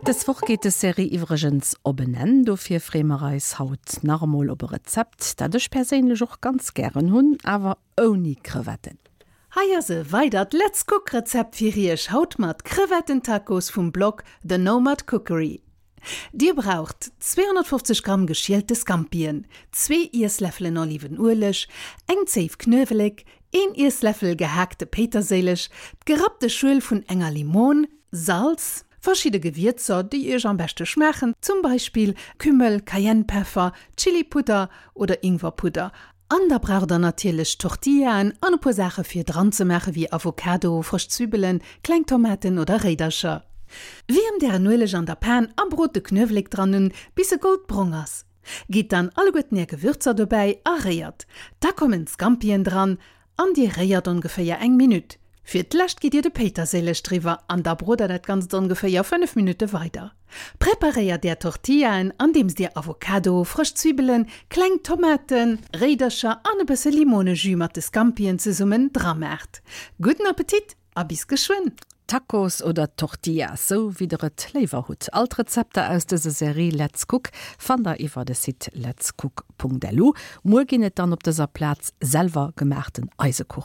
Dës Woch geet des Serie iwwregens op en Enn, dofir freeë mer eis haut nach emol op e Rezept, dat ech perséinlech och ganz gären hunn, awer ouni Crevetten. Hei ass e weidert Let's Cook Rezept fir iech, haut mat Crevetten-Tacos vum Blog The Nomad Cookery. Dir braucht 250 Gramm geschielte Scampien, zwee Iessläffelen Olivenueleg, eng Zéif Knuewelek, een Iessläffel gehaakte Péiterséileg, d'gerappte Schuel vun enger Limon, Salz, verschidde Gewierzer, déi iech am beschte schmaachen, zum Beispill Kümmel, Cayennepeffer, Chilipudder oder Ingwerpudder An da braucht der natierlech Tortillaen an e puer Saache fir dran ze maache wéi Avocado, frësch Zwibbelen, kleng Tomaten oder Réidercher. Wiermt ären Ueleg an der Pan a brot de Knuewelek dran un bis e goldbrong ass. Gitt dann alleguerten är Gewürzer dobäi a réiert. Da kommen d'Scampien dran an dir réiert ongeféier eng Minutt. Fir d'lescht gitt dir de Péiterséileg driwwer an da brot der dat Ganzt ongeféier 5 Minutte weider. Preparéiert är Tortillaen andeems dir Avocado, frësch Zwibbelen, kleng Tomaten, Réidercher an e bësse Limonejus mat de Scampien zesummen dra maacht. Gudden Appetit a bis geschwënn! Tacos oder Tortillas, sou wéi der et léiwer hutt. All d'Rezepter aus dëser Serie Let's Cook fannt der iwwer de Site letscook.lu. Muer ginn et dann op dëser Plaz selwer gemaachten Eisekuchen.